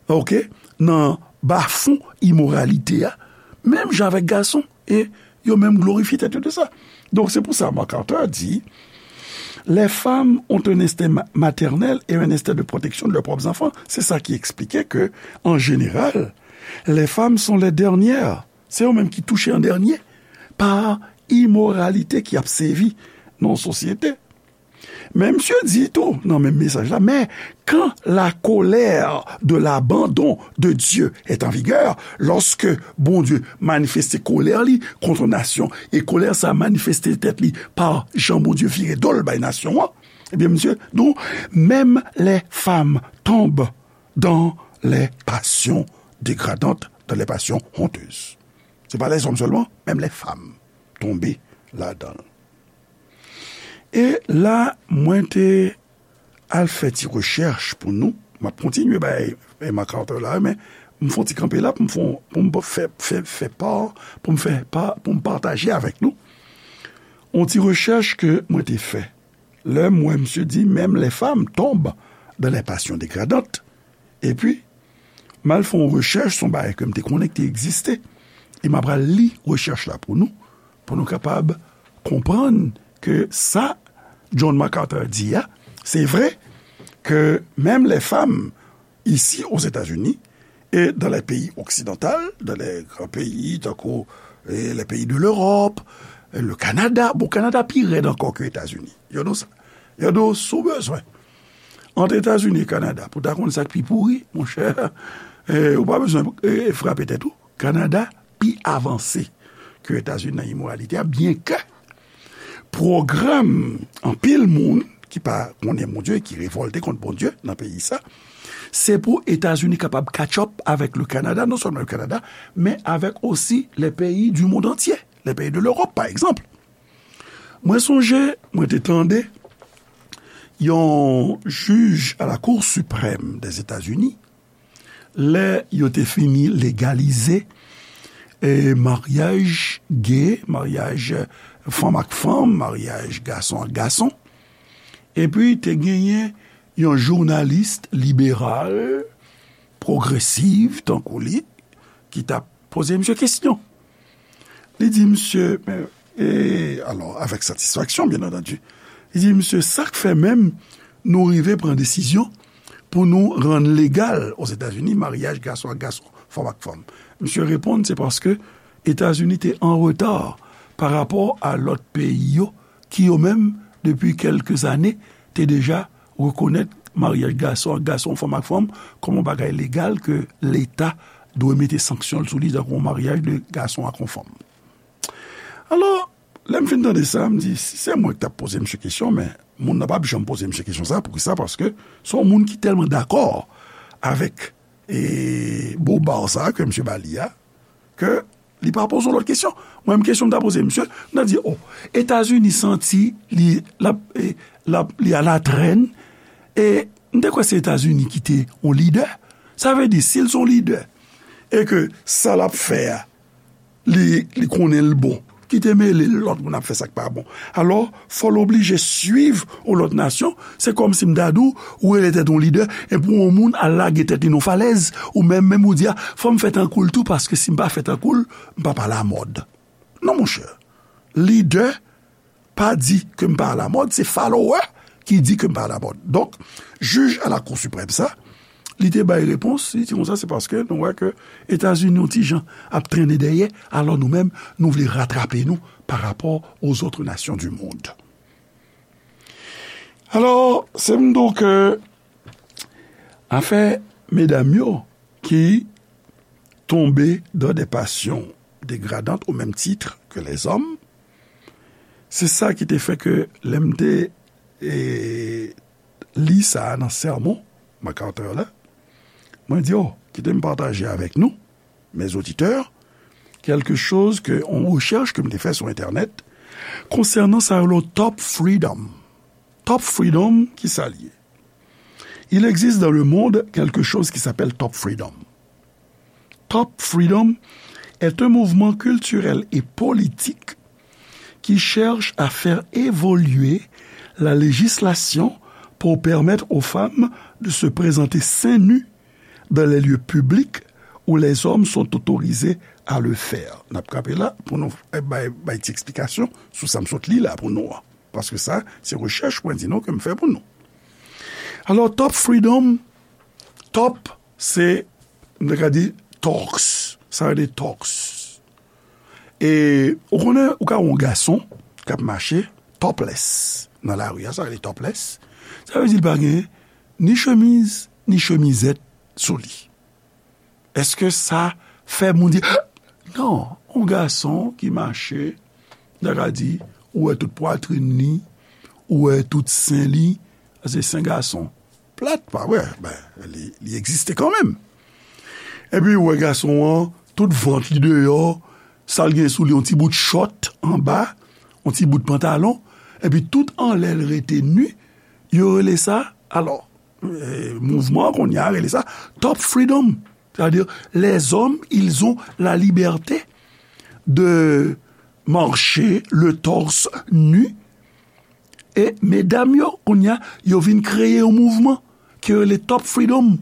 oke, nan bafon imoralite a, menm jan avèk gason, e yo menm glorifye tèt yo de sa. Donk, se pou sa MacArthur di, les femmes ont un instinct ma-, maternel et un instinct de protection de leurs propres enfants. Se sa ki eksplike ke, an jeneral, Les femmes sont les dernières. Se yo menm ki touche an dènye pa imoralite ki ap sevi nan yon sosyete. Men misye di tou, nan menm mesaj la, mais quand la colère de l'abandon de Dieu est en vigueur, lòske Bondye manifeste kolè li kont nasyon, e kolè sa manifeste tèt li pa jan Bondye vire do l bay nasyon an, ebyen, misye, donc, même les femmes tombent dans les passions dégradantes, dans les passions honteuses. Se pa lèzòm sèlman, menm lèfanm tonbe ladan l. E la, mwen te al fè ti rechèch pou nou. M ap kontinye bay Emma Carter la, men m fè yon ti kanpe la pou m fè, pou m fè, fè, fè pa, pou m fè pa, pou m pataje avèk nou yon ti rechèch ke mwen te fè. Lè m wè misye di, même les femmes tombent dans les passions dégradantes. Epi, m al fè yon rechèch sou yon bagay ke m te konnen ki te egziste. E m ap al li rechèch la pou nou, pou nou kapab konprann ke sa John MacArthur di a, se vre ke menm lèfanm isi Ozetazini e dans les pays occidentaux, dans les grands pays tankou, eh, les pays de l'Europe, eh, le Canada, bon, Kanada pi rèd ankò ke Etazini. Yo di w sa. Yo di w, si w bezwen ant Etazini e Kanada, pou w ta konn sa k pi pouri, monchè, eh, ou pa bezwen, eh, frape tèt ou. Kanada pi avanse ke Etazini nan imoralite a, byenke pwogram anpil moun ki pa konnen Bondye, ki revòlte kont Bondye nan peyi sa, se pou Etazini kapab catch up avèk le Kanada, non sèlman le Kanada, men avèk osi les pays du monde entier, les pays de l'Europe, pa egzanp. Mwen sonje, mwen te tande yon jij a la Cour suprême des États-Unis, lè yo te fini legalize, eh, maryaj gay, maryaj fanm ak fanm, maryaj gason ak gason. Epi te genyen yon jounalis liberal, pwogresiv, tankou li, ki t ap poze misye kesyon. Li di misye, men, e, alò, avèk satisfaksyon, byen antandi, li di misye, sa k fè menm nou rive pran desizyon pou nou rann legal Ozetazini maryaj gason ak gason, fanm ak fanm? Misye reponn, se paske Etazini te an reta pa rapò a lòt peyi yo ki yo menm, depi kèlke zane, te deja rekonèt maryaj gason ak gason, fanm ak fanm, kòm yon bagay legal ke Leta dwe mete sanksyon l sou li, tankou yon maryaj de gason ak yon fanm. Alò, lè m fin tande sa, m di, si se mwen ki t ap poze misye kesyon, men moun nan p ap janm poze misye kesyon sa, poukisa? Paske se yon moun ki tèlman dakò avèk, e, boba sa ke misye ba li a, ke li pa poze yon lòt kesyon. Mwen menm, kesyon m ta poze misye, m ta di, o, Etazini santi li, l ap, e, l ap, li a la trèn, e m te kwè se Etazini ki te yon lidè. Sa vle di, si l se yon lidè, e ke sa l ap fè a, li, li konnen l bon, ki te mele l lòt moun ap fè sa k pa bon. Alò, fò l oblije swiv yon lòt nasyon. Se kòmsi m ta di w, ou rele tèt ou lidè, epi yon moun al lage tèt li nan falèz, ou menm, menm ou di a, fò m fè tankou l tou, paske si m pa fè tankou l, m p ap alamòd. Non, monchè. Lidè pa di ke m pa alamòd, se follower ki di ke m pa alamòd. Donk, jij a la Cour suprême sa, li te bay repons, li di konsa, se paske nou wè ke Etazini yon ti jan ap trennen dèyè, alò nou menm, nou vle ratrape nou pa rapò aux autres nations du monde. Alò, se m di w ke afè medam yo ki tombe dans des passions dégradantes au même titre que les hommes, se sa ki te fè ke lè m te, e, li sa a nan sèmon MacArthur la, mwen di, o, kite m pataje avèk nou, mes auditeurs, quelque chose ke, yon rechèch ke m te fè sou entènèt konsènan sa yo rele top freedom. Top freedom, ki sa l ye? Il existe dans le monde quelque chose qui s'appelle top freedom. Top freedom est un mouvement culturel et politique qui cherche à faire évoluer la législation pour permettre aux femmes de se présenter seins nus dans les lieux publics où les hommes sont autorisés à le faire. N ap kanpe la pou nou, eh, bay, bay ti eksplikasyon sou sa m sot li la pou nou an. Paske sa, se rechèch mwen di nou ke m fè pou nou. Alò, top freedom, top, se, m te ka di, tòks. Sa rele tòks. E ou konnen, ou ka wè yon gason k ap mache topless nan lari a, sa rele topless. Sa vle di l pa gen ni chemiz, ni chemizèt sou li. Èske sa fè moun di, non, yon gason ki mache, n ta ka di, ou wè tout pwatrin li, ou wè tout sen li, se sen gason. Plat, pa vre, ben, li, li egziste kanmenm. Epi ou wè gason an, tout vant li deyò, sa l gen sou li, yon ti bout chòt anba, yon ti bout pantalon, epi tout anlè l rete ni, yo rele sa, alò, eh, mouvman an kounye a rele sa top freedom. C'est-à-dire, les hommes, ils ont la liberté de marcher le torse nu. E medam yo, kounye a, yo vin kreye yon mouvman ki rele top freedom.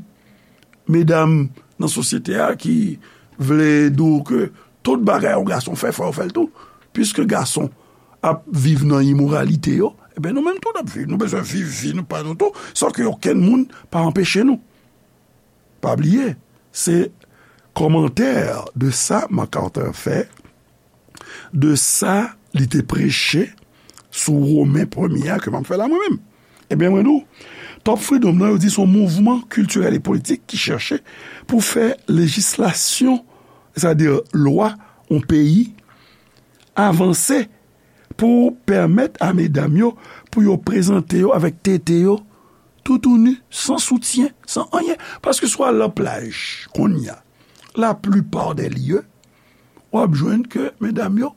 Medam nan sosyete a ki vle di w ke tout bagay yon gason fè, fò yo fè l tou. Piske gason ap viv nan imoralite yo, ebyen nou menm tou n ap viv. Nou bezwen viv vi nou pa nou tou, san ke okenn moun pa anpeche nou. Pa bliye, se kòmantè de sa MacArthur fè, de sa li te preche sou Women premye a ke m ap fè la mwen menm. Ebyen, mwen di w, Top Freedom nan, yo di se yon mouvman kiltirèl e politik ki chèche pou fè lejislasyon, sètadi lwa yon peyi, avanse pou pèmèt a medam yo, pou yo prezante yo avèk tete yo, toutouni, san soutyen, san anyen. Paske si w al nan plaj, kounye a, laplipa dè lye, w ap jwenn ke medam yo,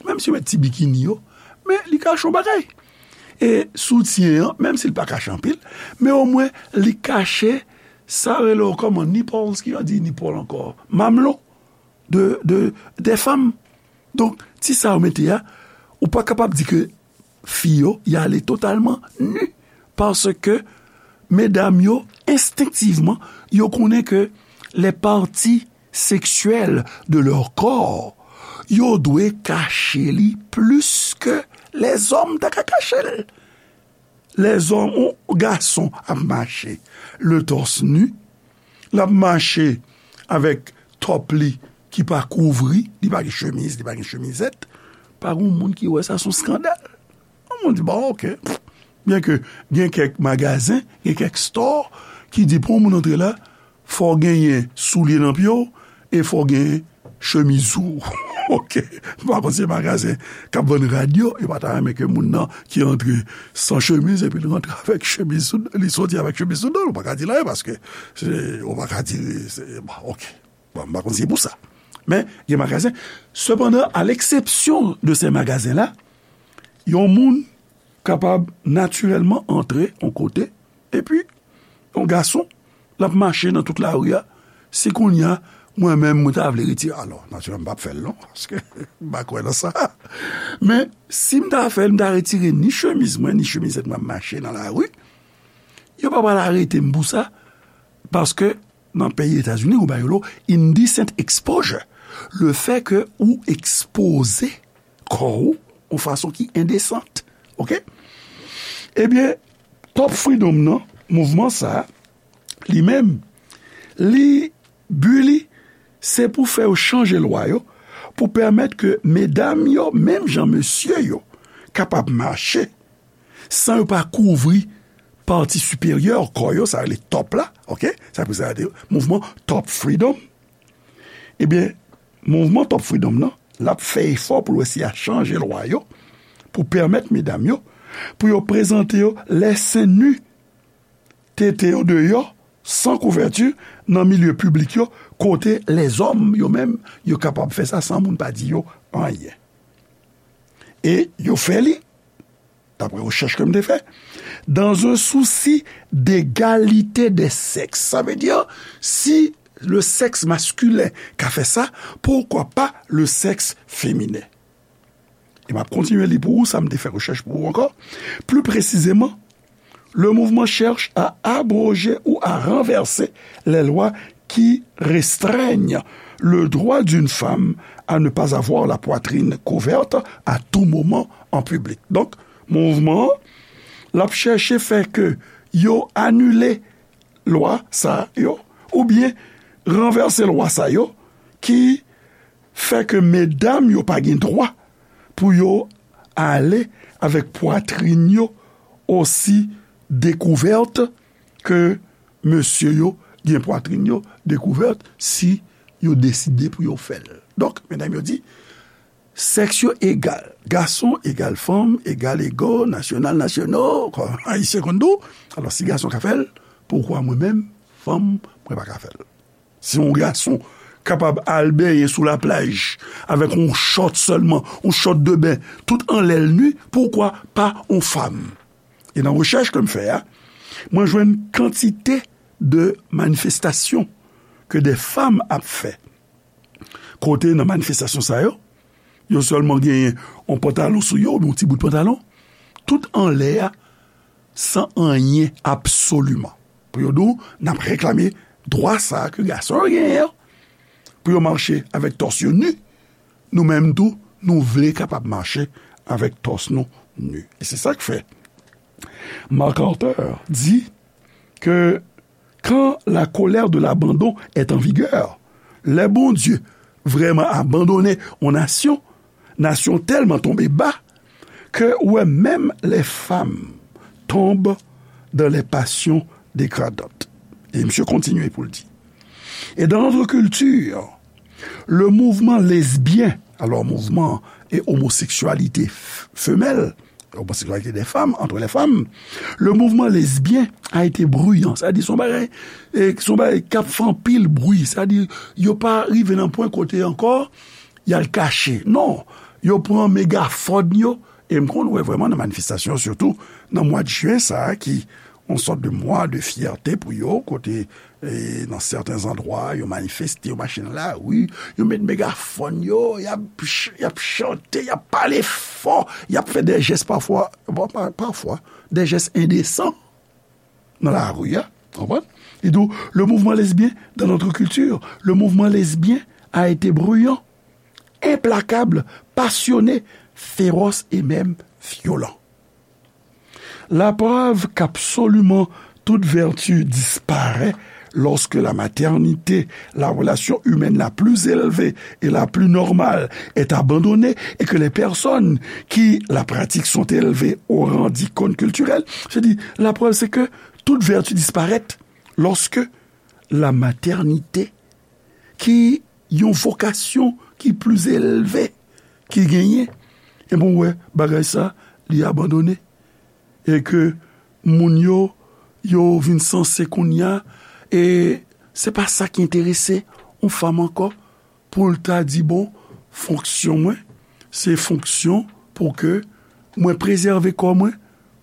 menm si yo met ti bikini yo, men li kache yon bagay. E soutyen an, menm si l pa kache anpil, men omwen li kache, sa rele w kòman, nipples, ki yo di nipple ankò, mamlo de, de, dè fanm. Donk, ti sa yo mete a, ou pa kapab di ke fi yo, y ale totalman ni. Paske medam yo, enstenktivman, yo konnen ke les parties sexuelles de leur corps, yo dwe kache li plis ke lèzòm ta ka kache l. Lèzòm, yon gason ap mache le torse nu, l ap mache avèk top li ki pa kouvri, li pa gen chemiz, li pa gen chemizèt, pa gen moun ki wè sa, se yon skandal. Yon moun di, bon, oke. Byenke gen kèk magazen, gen kèk store ki di pou yon moun antre la, fò w genyen soulye nan pye w e fò w genyen chemiz ou. Oke. M pa konn si se magazen k ap vann rad yo, yo pa ta renmen ke moun nan ki antre san chemiz epi li rantre avèk chemiz sou, li soti avèk chemiz sou do l. Ou pa ka di l anyen paske se, ou pa ka di, se, bon, oke. Bon, m pa konn si se pou sa. Men, gen magazen. Sepandan, à l'exception de ces magasins-là, yon moun kapab natirèlman antre yon kote, epi yon gason, l ap mache nan tout lari a. Si kounye a, mwen menm, mwen ta vle retire, alò, natirèlman, m p ap fè l non, paske m pa kwè nan sa. Men, si m ta fè l, m ta retire ni chemiz mwen, ni chemizèt mwen, m ap mache nan lari, yo pa pral arete m pou sa, paske nan peyi Etazini, ou ba yo lo indecent exposure. Le fait que ou ekspoze kò ou yon fason ki endesant. Oke? Ebyen, Top Freedom nan, mouvman sa, li menm, li, bi li, se pou fè yo chanje lwa yo, pou pèmèt ke medam yo, menm jan mesye yo, kapab mache, san yo pa kouvri pati siperyè kò yo, sa rele top la, oke? Sa pou sa de mouvman Top Freedom. Ebyen, mouvman Top Freedom nan, l ap fè efò pou l eseye a chanje lwa yo, pou pèmèt medam yo, pou yo prezante yo lè sen ni, tete yo deyò, san kouvèti, nan milye piblik yo, kote lèzòm yo menm, yo kapab fè sa san moun pa di yo anyen. E yo fè li, daprè rechèch ke m te fè, dans un souci d'égalité des sexes. Sa vle di, si le sexe masculin ka fè sa, pourquoi pas le sexe féminin? E m ap kontinye li pou ou, sa m te fè rechèch pou ou ankò. Plus précisément, le mouvement cherche à abroger ou à renverser les lois qui restreignent le droit d'une femme à ne pas avoir la poitrine couverte à tout moment en public. Donk, mouvman an, l ap chèche fè ke yo anile lwa sa yo, oubyen ranvèse lwa sa yo ki fè ke medam yo pa gen dwa pou yo ale avèk pwatrin yo osi dekouvèt ke mesye yo gen pwatrin yo dekouvèt si yo deside pou yo fè l. Donk, medam yo di, sèks yo egal. Gason egal fanm, egal ego, nasyonal, nasyono, kon Ayisyen konn di w. Alò, si gason ka fè l, poukwa mwen menm, fanm, mwen pa ka fè l? Si yon gason kapab al benyen sou laplaj avèk yon chòt sèlman, yon chòt de ben, tout anlè l ni, poukwa pa yon fanm? E nan rechèch ke m fè a, mwen jwenn kantite de manifestasyon ke de fanm ap fè. Kote nan manifestasyon sa yo, yo sèlman genyen yon pantalon sou yo, oubyen yon ti bout pantalon, tout anlè a, san anyen absoliman. Pou yo di w, n ap reklame dwa sa a ke gason yo genyen an, pou yo mache avèk tòs yo ni, nou menm tou, nou vle kapab mache avèk tòs nou ni. E se sa k fè Mark Carter di ke quand la colère de l'abandon est en vigueur, lè Bondye vrèman abandone yon nasyon, nasyon tèlman tonbe ba ke ou wè menm les femmes tombent dans les passions dégradantes. E misye kontinye pou l di, et dans notre culture, le mouvement lesbien, alors mouvement et homosexualité f- femelle, l'homosexualité des femmes, entre les femmes, le mouvement lesbien a été bruyant. Sa di, se yon bagay, e, se yon bagay k ap fè anpil bri. Sa di, yo pa rive nan pwen kote ankò y al kache. Non, yo pran megafòn yo. E m konn wè vrèman nan manifestasyon, sitou nan mwa de jen sa a, ki yon sòt de mwa de fyète pou yo, kote, e, nan sèten zandwa, yo manifeste, yo mache nan lari, yo met megafòn yo, y ap ch- y ap chante, y ap pale fò, y ap fè de jès pafwa, bon, pa- pafwa, de jès endesan nan lari a, konprann? Li di w, le mouvement lesbien dans notre culture, le mouvement lesbien a été bruyant, implacable, passionné, féroce et même violent. La preuve qu'absolument toute vertu disparaît lorsque la maternité, la relation humaine la plus élevée et la plus normale, est abandonnée et que les personnes qui la pratiquent sont élevées au rang d'icône culturelle. Je dis, la preuve, c'est que toute vertu disparaît lorsque la maternité, ki yon vokasyon ki pli elve ki genyen, e bon, wè, bagay sa, li abandone. E ke moun yo, yo vin sanse kounye a, e se pa sa ki enterese yon fanm ankò, pou l ta di, bon, fonksyon mwen, se fonksyon pou ke mwen prezève kò mwen,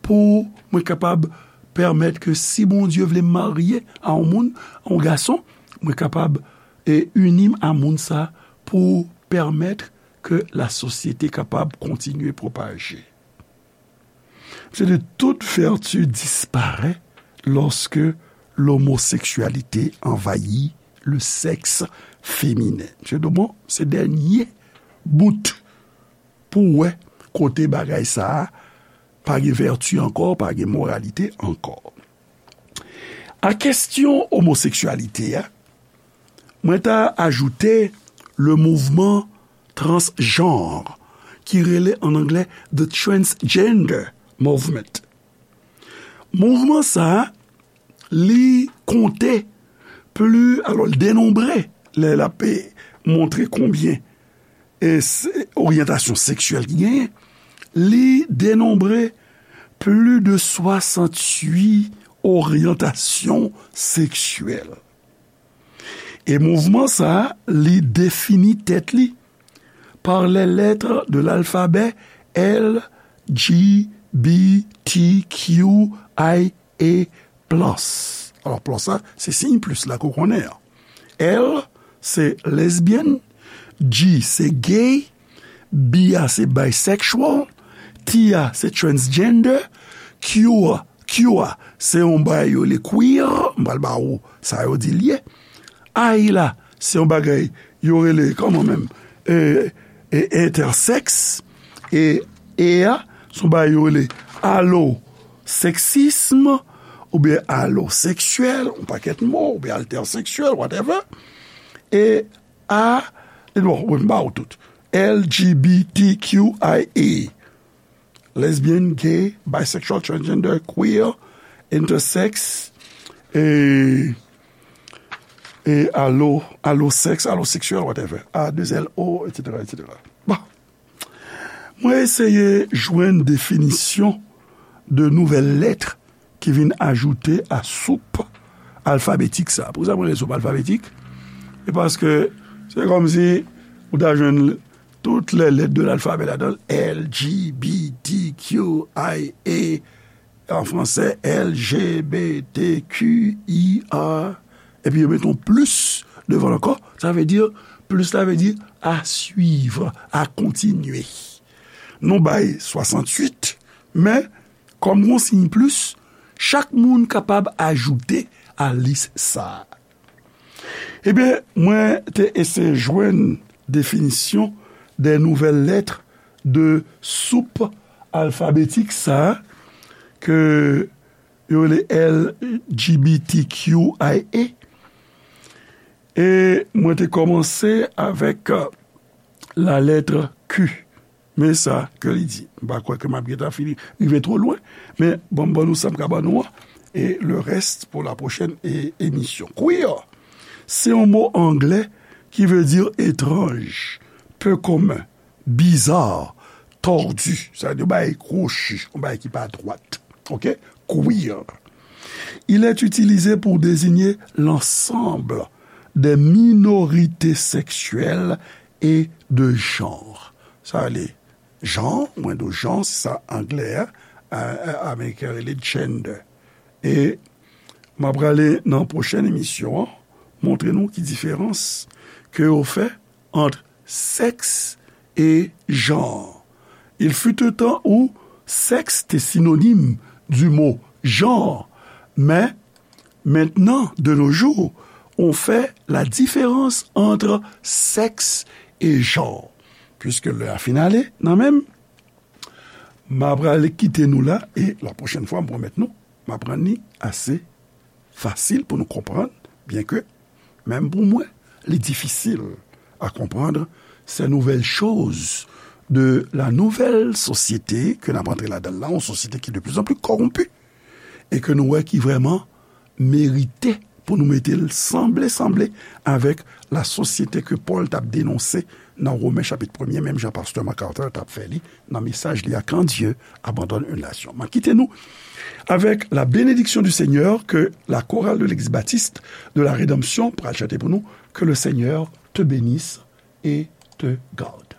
pou mwen kapab pèmèt ke si Bondye vle m marye a yon moun, a yon gason, mwen kapab, e, ini m a moun sa pou pèmèt ke lasosyete kapab kontinye pwopaje. Msye di, toute vertu disparaît lorsque l'homosexualité envahit le sexe féminin. Msye di, bon, se dènye bout pou wè kote bagay sa a pa gen vèti ankò, pa gen moralite ankò. A kesyon omoseksyalite a, mwen ta ajoute le mouvman transjanr ki rele an anglè the transgender movement. Mouvman sa a, li konte pli, alò, l denonbre, lè l ap montre konbyen e se oryantasyon seksyèl ki genyen, li denonbre pli de swasanntuit oryantasyon seksyèl. E mouvman sa a, li defini tèt li par les lettres de l'alphabet L G B T Q I A plus. Alò, plus la, se siy plis la ke w konnen an. L, se lesbian, G, se gay, B a, se bisexual, T a, se transgender, Q a, Q a, se yon bagay yo rele queer, m pral ba ou sa yo di l ye. I la, se yon bagay yo rele, kòman menm, e, e, intersex, e, E a, se yon bagay yo rele alloseksism, oubyen aloseksyèl, yon pakèt mo, oubyen altèseksyèl, whatever. E A, e bon, wi, m ba w tout. L G B T Q I A. Lesbian, gay, bisexual, transgender, queer, intersex, e, e alo, alosex, aloseksyèl, whatever. A, de L, O, et cetera, et cetera. Bon. Mwen eseye jwenn definisyon de nouvèl lèt ki vin ajoute a soup alfabetik sa. Poukisa mwen rele soup alfabetik? E paske se kòmsi ou ta jwenn toutes les lettres de l'alphabet ladan l, L G B T Q I A, an fransè, L G B T Q I A, epi yo mete yon plis devan l ankò, sa vle di, plis la vle di à suivre, à continuer. Nou bay swasanntuit, men kòm gon siy plis, chak moun kapab ajoute a lis sa a. Ebyen, mwen te eseye jwenn definisyon de nouvèl lèt de soup alfabetik sa a ke yo rele L G B T Q I A. E mwen te kòmanse avèk, euh, la lettre Q. Men sa ke li di. M pa kwè ke m ap gentan fini, rive twò lwen, men bon, m ban nou sa m ka ban nou an, e le reste pour la prochaine é-, émission. Queer, se yon mo anglè ki vle di etranj, peu commun, bizarre, tordu, sa vle di yon bagay kwochi, yon bagay ki pa dwat. Oke? Queer. Il est utilisé pour désigner l'ensemble des minorités sexuelles et de genre. Sa vle jan, mwen di w jan, se sa anglè a, a, a, ameriken rele gender. E m ap prale nan pwochèn emisyon an, montre nou ki diferans ke yo fè ant sèks e jan. Il fut un temps où sexe était synonyme du mot genre, mais maintenant, de nos jours, on fait la différence entre sexe et genre. Puiske lè a fin ale nan men m, m ap prale kite nou la, e la pwochèn fwa, m pwomèt nou, m ap rann li ase fasil pou nou konprann, byenke, menm pou mwen, li difisil à comprendre ces nouvelles choses de la nouvelle société ke n ap antre ladan l la, yon sosyete ki de plus en plus corrompue, e ke nou wè ki vrèman merite pou nou mete l sanble, sanble avèk la sosyete ke Pòl t ap denonse nan Women chapit premye, menm jan pastè MacArthur t ap fè li nan mesaj li a, Quand Dieu abandonne une nation. M ap kite nou avec la bénédiction du Seigneur que la chorale de l'église baptiste de la Rédemption pral chante pou nou, Que le Seigneur te bénisse et te garde.